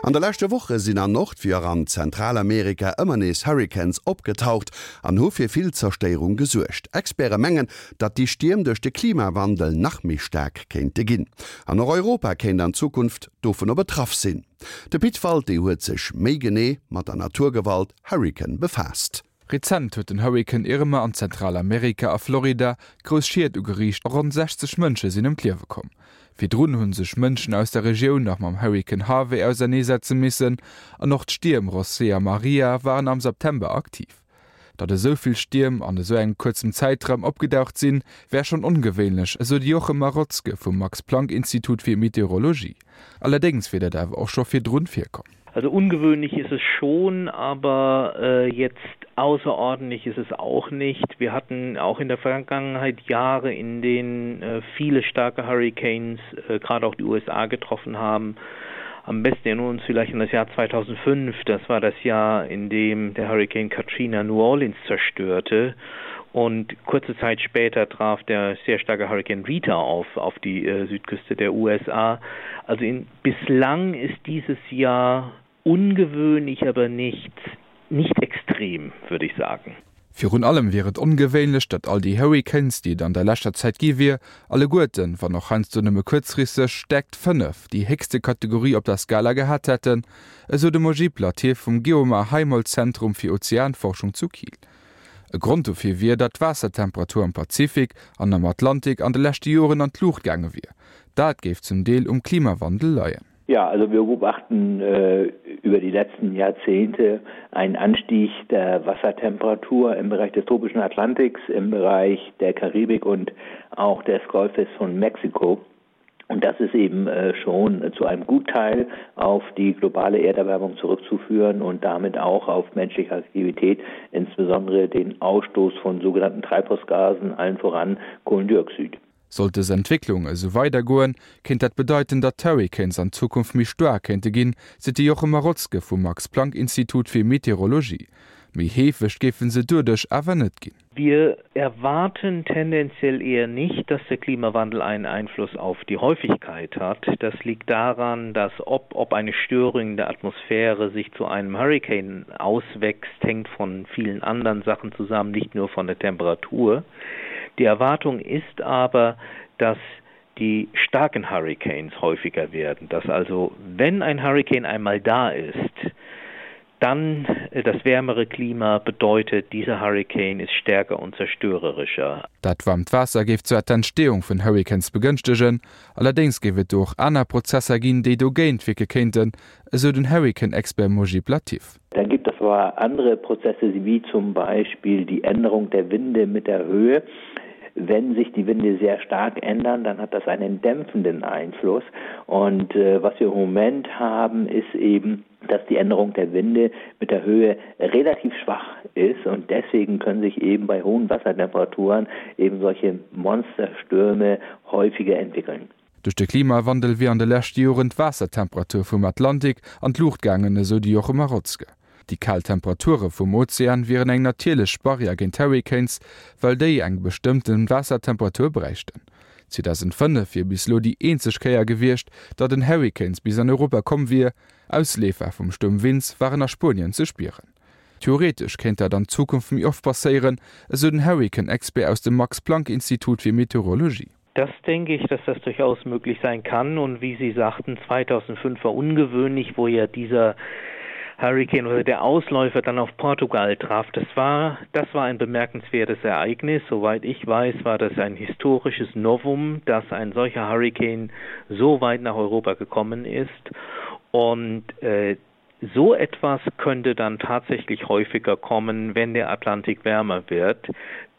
An de leschte Woche sinn an Nord wéi och an Zentralamerika ëmmer nees Hurrikans opgetaucht an hu fir vill Zerstéierung gesuergt. Experte mengen, datt déi Stierm duerch de Klimawandel nach méi staark kéinte ginn. An och Europa kéint an Zukunft dovunner betraff sinn. De Pit Walté huet sech méi genee mat der Naturgewalt Hurrikan befaasst. Rezent huet den Hurrikan Irma an Zentralamerika a Florida grouss Schied ugeriicht a ronn 60 Mënsche sinn ëm d'Liewe komm. Virdrun hu sech Mënschen aus der Regioun nach mam Hurrikan Harvey auserneesetze missen an och d'Stierm Rosé a Maria waren am September aktiv. Datt esou vill Stierm an esou engem kuerzem Zäitraum opgedaucht sinn, wär schonn ongewéinlech, esou de Jochem Marotzke vum Max-Planck-Institut fir Meteorologie. Allerdéngs wier dat awer och scho virdrun virkomm. Also ungewöhnlich ist es schon, aber äh, jetzt außerordentlich ist es auch nicht. Wir hatten auch in der Vergangenheit Jahre, in denen äh, viele starke Hurricanes äh, gerade auch die USA getroffen haben. Am besten erinnern wir uns vielleicht an das Jahr 2005. Das war das Jahr, in dem der Hurricane Katrina New Orleans zerstörte. Und kurze Zeit später traf der sehr starke Hurricane Rita auf, auf die äh, Südküste der USA. Also in, bislang ist dieses Jahr ungewöhnlich, aber nicht, nicht extrem, würde ich sagen. Virun allem wier et ongewéinlech, datt all déi Hurricanes, déi et an der leschter Zäit gi wier, alleguerten, wann och heiansdo nëmme kuerzfristeg, Stäerkt 5, déi héchste Kategorie op der Skala gehat hätten, esou de Mojib Latif vum Geomar Heimholz Zentrum fir Ozeanforschung zu Kiel. E Grond dofir wier, datt d'Waassertemperatur am Pazifik an am Atlantik an de leschte Joren an d'Luucht gaange wier. Dat géif zum Deel um Klimawandel leien. Ja, also wir beobachten äh, über die letzten Jahrzehnte einen Anstieg der Wassertemperatur im Bereich des tropischen Atlantiks, im Bereich der Karibik und auch des Golfes von Mexiko. Und das ist eben äh, schon zu einem Gutteil auf die globale Erderwärmung zurückzuführen und damit auch auf menschliche Aktivität, insbesondere den Ausstoß von sogenannten Treibhausgasen, allen voran Kohlendioxid. Sollt dës Entwécklung esou weidergoen, kéint dat bedeiten, datt d'Hurricanes an Zukunft méi staark kéinte ginn, seet de Jochem Marotzke vum Max-Planck-Institut fir Meteorologie. Méi heefeg géife se doduerch awer net ginn. Wir erwarten tendenziell eher nicht, dass der Klimawandel einen Einfluss auf die Häufigkeit hat. Das liegt daran, dass ob, ob eine Störung in der Atmosphäre sich zu einem Hurricane auswächst, hängt von vielen anderen Sachen zusammen, nicht nur von der Temperatur. Die Erwartung ist aber, dass die starken Hurricanes häufiger werden, dass also wenn ein Hurricane einmal da ist, dann äh, das wärmere Klima bedeutet, dieser Hurricane ist stärker und zerstörerischer. Dat waarmt Waasser géif zwar d'Entstehung vun Hurricanes begënschtegen, allerdéngs géif et do och aner Prozesser ginn, déi dogéint wierke kéinten, esou den Hurrican-Expert Mojib Latif. Dann gibt es aber andere Prozesse wie zum Beispiel die Änderung der Winde mit der Höhe. Wenn sich die Winde sehr stark ändern, dann hat das einen dämpfenden Einfluss. Und äh, was wir im Moment haben, ist eben, dass die Änderung der Winde mit der Höhe relativ schwach ist und deswegen können sich eben bei hohen Wassertemperaturen eben solche Monsterstürme häufiger entwickeln. Duerch de Klimawandel wier an de leschte Joren d'Waassertemperatur vum Atlantik an d'Luucht gaangen, esou de Jochem Marotzke. Déi kal Temperature vum Ozean wieren eng natierlech Barrière géint Hurricanes, well déi eng bestëmmte Waassertemperatur bräichten. 2005 wier bis elo déi eenzeg Kéier gewiescht, datt en Hurricanes bis an Europa komm wier. Ausleefer vum Stuerm Vince waren a Spuenien ze spieren. Theoretesch kéint dat an Zukunft méi oft passéieren, esou den Hurrikan-Expert aus dem Max-Planck-Institut fir Meteorologie. Das denke ich, dass das durchaus möglich sein kann und wie Sie sagten, 2005 war ungewöhnlich, wo ja dieser Hurricane oder der Ausläufer dann auf Portugal traf. Das war, das war ein bemerkenswertes Ereignis. Soweit ich weiß, war das ein historisches Novum, dass ein solcher Hurricane so weit nach Europa gekommen ist. Und äh, So etwas könnte dann tatsächlich häufiger kommen, wenn der Atlantik wärmer wird.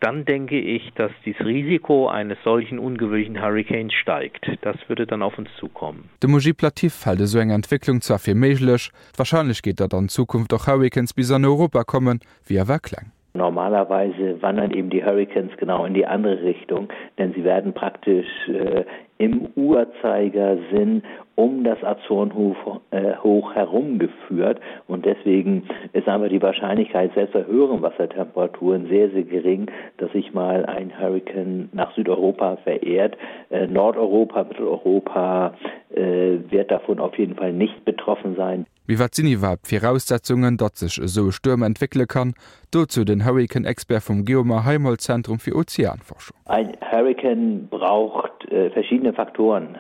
Dann denke ich, dass dies Risiko eines solchen ungewöhnlichen Hurricanes steigt. Das würde dann auf uns zukommen. De Mojib Latif hält esou eng Entwécklung zwar fir méiglech, d'Warscheinlechkeet, datt an Zukunft och Hurricanes bis an Europa kommen, wier awer kleng. Normalerweise wandern eben die Hurricanes genau in die andere Richtung, denn sie werden praktisch äh, im Uhrzeigersinn. um das Azorenhof äh, hoch herumgeführt und deswegen ist einfach die Wahrscheinlichkeit selbst bei höheren Wassertemperaturen sehr sehr gering, dass sich mal ein Hurrikan nach Südeuropa verehrt. Äh, Nordeuropa, Mitteleuropa äh, wird davon auf jeden Fall nicht betroffen sein. Mee wat sinn iwwerhaapt d'Viraussetzungen, datt sech esou e Stuerm entwéckele kann? Dozou den Hurrikan-Expert vum Geomar Heimholz Zentrum fir Ozeanforschung. Ein Hurrikan braucht verschiedene Faktoren.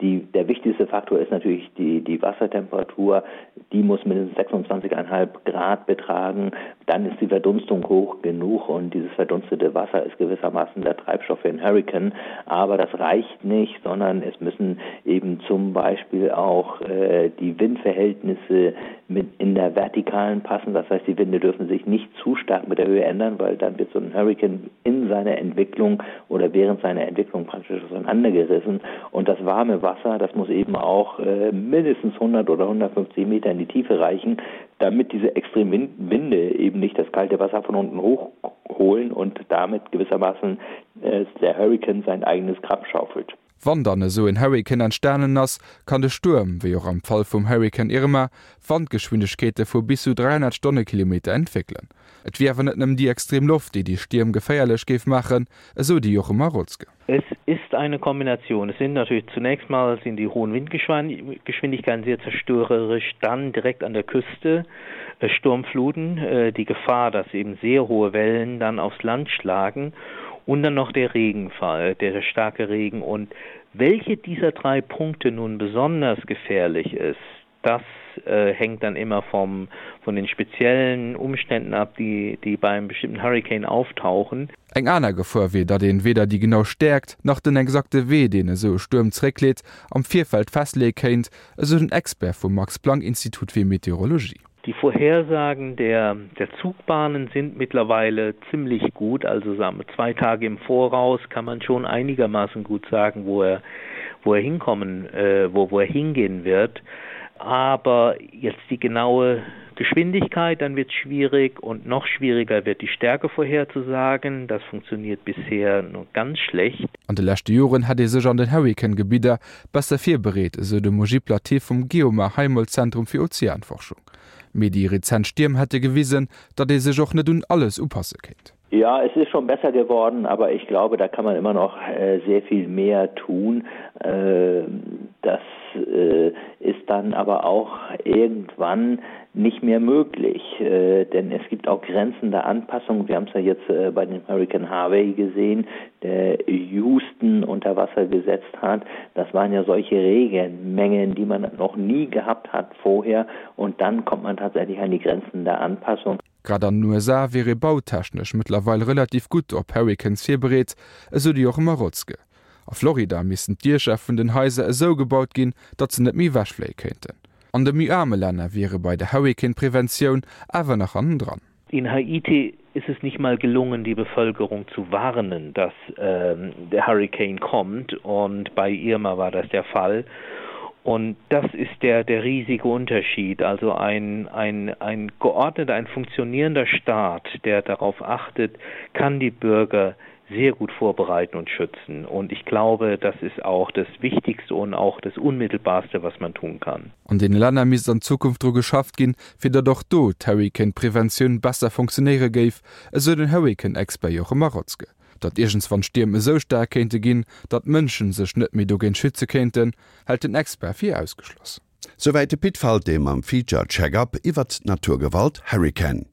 Die, der wichtigste Faktor ist natürlich die, die Wassertemperatur. Die muss mindestens 26,5 Grad betragen. Dann ist die Verdunstung hoch genug und dieses verdunstete Wasser ist gewissermaßen der Treibstoff für einen Hurrikan. Aber das reicht nicht, sondern es müssen eben zum Beispiel auch äh, die Windverhältnisse mit in der vertikalen passen. Das heißt, die Winde dürfen sich nicht zu stark mit der Höhe ändern, weil dann wird so ein Hurrikan in seiner Entwicklung oder während seiner Entwicklung praktisch auseinandergerissen. Und das warme Wasser, das muss eben auch äh, mindestens 100 oder 150 Meter in die Tiefe reichen, damit diese extremen Winde eben nicht das kalte Wasser von unten hochholen und damit gewissermaßen äh, der Hurrikan sein eigenes Grab schaufelt. Wann dann esou en Hurrikan entstanen ass, kann de Stuerm, wéi och am Fall vum Hurrikan Irma, Wandgeschwindegkeete vu bis zu 300 Stonnekilometer entwéckelen. Et wier awer net nëmmen déi extrem Loft, déi déi Stierm geféierlech géif maachen, esou de Jochen Marotzke. Es ist eine Kombination. Es sind natürlich zunächst mal sind die hohen Windgeschwindigkeiten sehr zerstörerisch, dann direkt an der Küste äh, Sturmfluten, äh, die Gefahr, dass eben sehr hohe Wellen dann aufs Land schlagen und dann noch der Regenfall, der starke Regen und welche dieser drei Punkte nun besonders gefährlich ist, das äh, hängt dann immer vom, von den speziellen Umständen ab, die, die beim bestimmten Hurricane auftauchen. Eng aner Gefor wier, datt een weder déi genau Stäerkt, nach den exakte Wee, deen esou e Stuerm zeréckleet, am Virfeld festleeë kéint, esou den Expert vum Max-Planck-Institut fir Meteorologie. Die Vorhersagen der, der Zugbahnen sind mittlerweile ziemlich gut. Also sagen wir, zwei Tage im Voraus kann man schon einigermaßen gut sagen, wo er, wo er hinkommen, äh, wo, wo er hingehen wird. Aber jetzt die genaue Geschwindigkeit, dann wird es schwierig und noch schwieriger wird die Stärke vorherzusagen. Das funktioniert bisher nur ganz schlecht. An de leschte Joren hätt ee sech an den Hurrikan-Gebidder besser virbereet, esou de Mojib Latif vum Geomar Heimholz Zentrum fir Ozeanforschung. Mee déi rezent Stierm hätte gewisen, datt ee sech och net un alles upasse kéint. Ja, es ist schon besser geworden, aber ich glaube, da kann man immer noch äh, sehr viel mehr tun. Äh, das äh, ist dann aber auch irgendwann nicht mehr möglich, äh, denn es gibt auch Grenzen der Anpassung. Wir haben es ja jetzt äh, bei dem Hurricane Harvey gesehen, der Houston unter Wasser gesetzt hat. Das waren ja solche Regenmengen, die man noch nie gehabt hat vorher und dann kommt man tatsächlich an die Grenzen der Anpassung. Grad an den USA wier ee bautechnesch mëttlerweil relativ gutt op Hurricanes virbereet, esou de Jochen Marotzke. A Florida missten d'Diecher vun den Haiser esou gebaut ginn, datt se net méi ewechfléie kéinten. An de méi aarme Länner wier ee bei der Hurrican-Preventioun awer nach hannendran. In Haiti ist es nicht mal gelungen, die Bevölkerung zu warnen, dass ähm, der Hurricane kommt und bei Irma war das der Fall. Und das ist der, der riesige Unterschied. Also ein, ein, ein geordneter, ein funktionierender Staat, der darauf achtet, kann die Bürger sehr gut vorbereiten und schützen. Und ich glaube, das ist auch das Wichtigste und auch das Unmittelbarste, was man tun kann. An deene Länner misst an Zukunft dru geschafft ginn, fir datt och do d'Hurrikan-Preventioun besser funktionéiere géif, esou den Hurrikan-Expert Jochen Marotzke. Datt iergendswann Stierm esou staark kéinte ginn, datt d'Mënsche sech net méi dogéint schütze kéinten, hält den Expert fir ausgeschloss. Souwäit de Pit Falté mam Feature Check-Up iwwert d'Naturgewalt Hurrikan.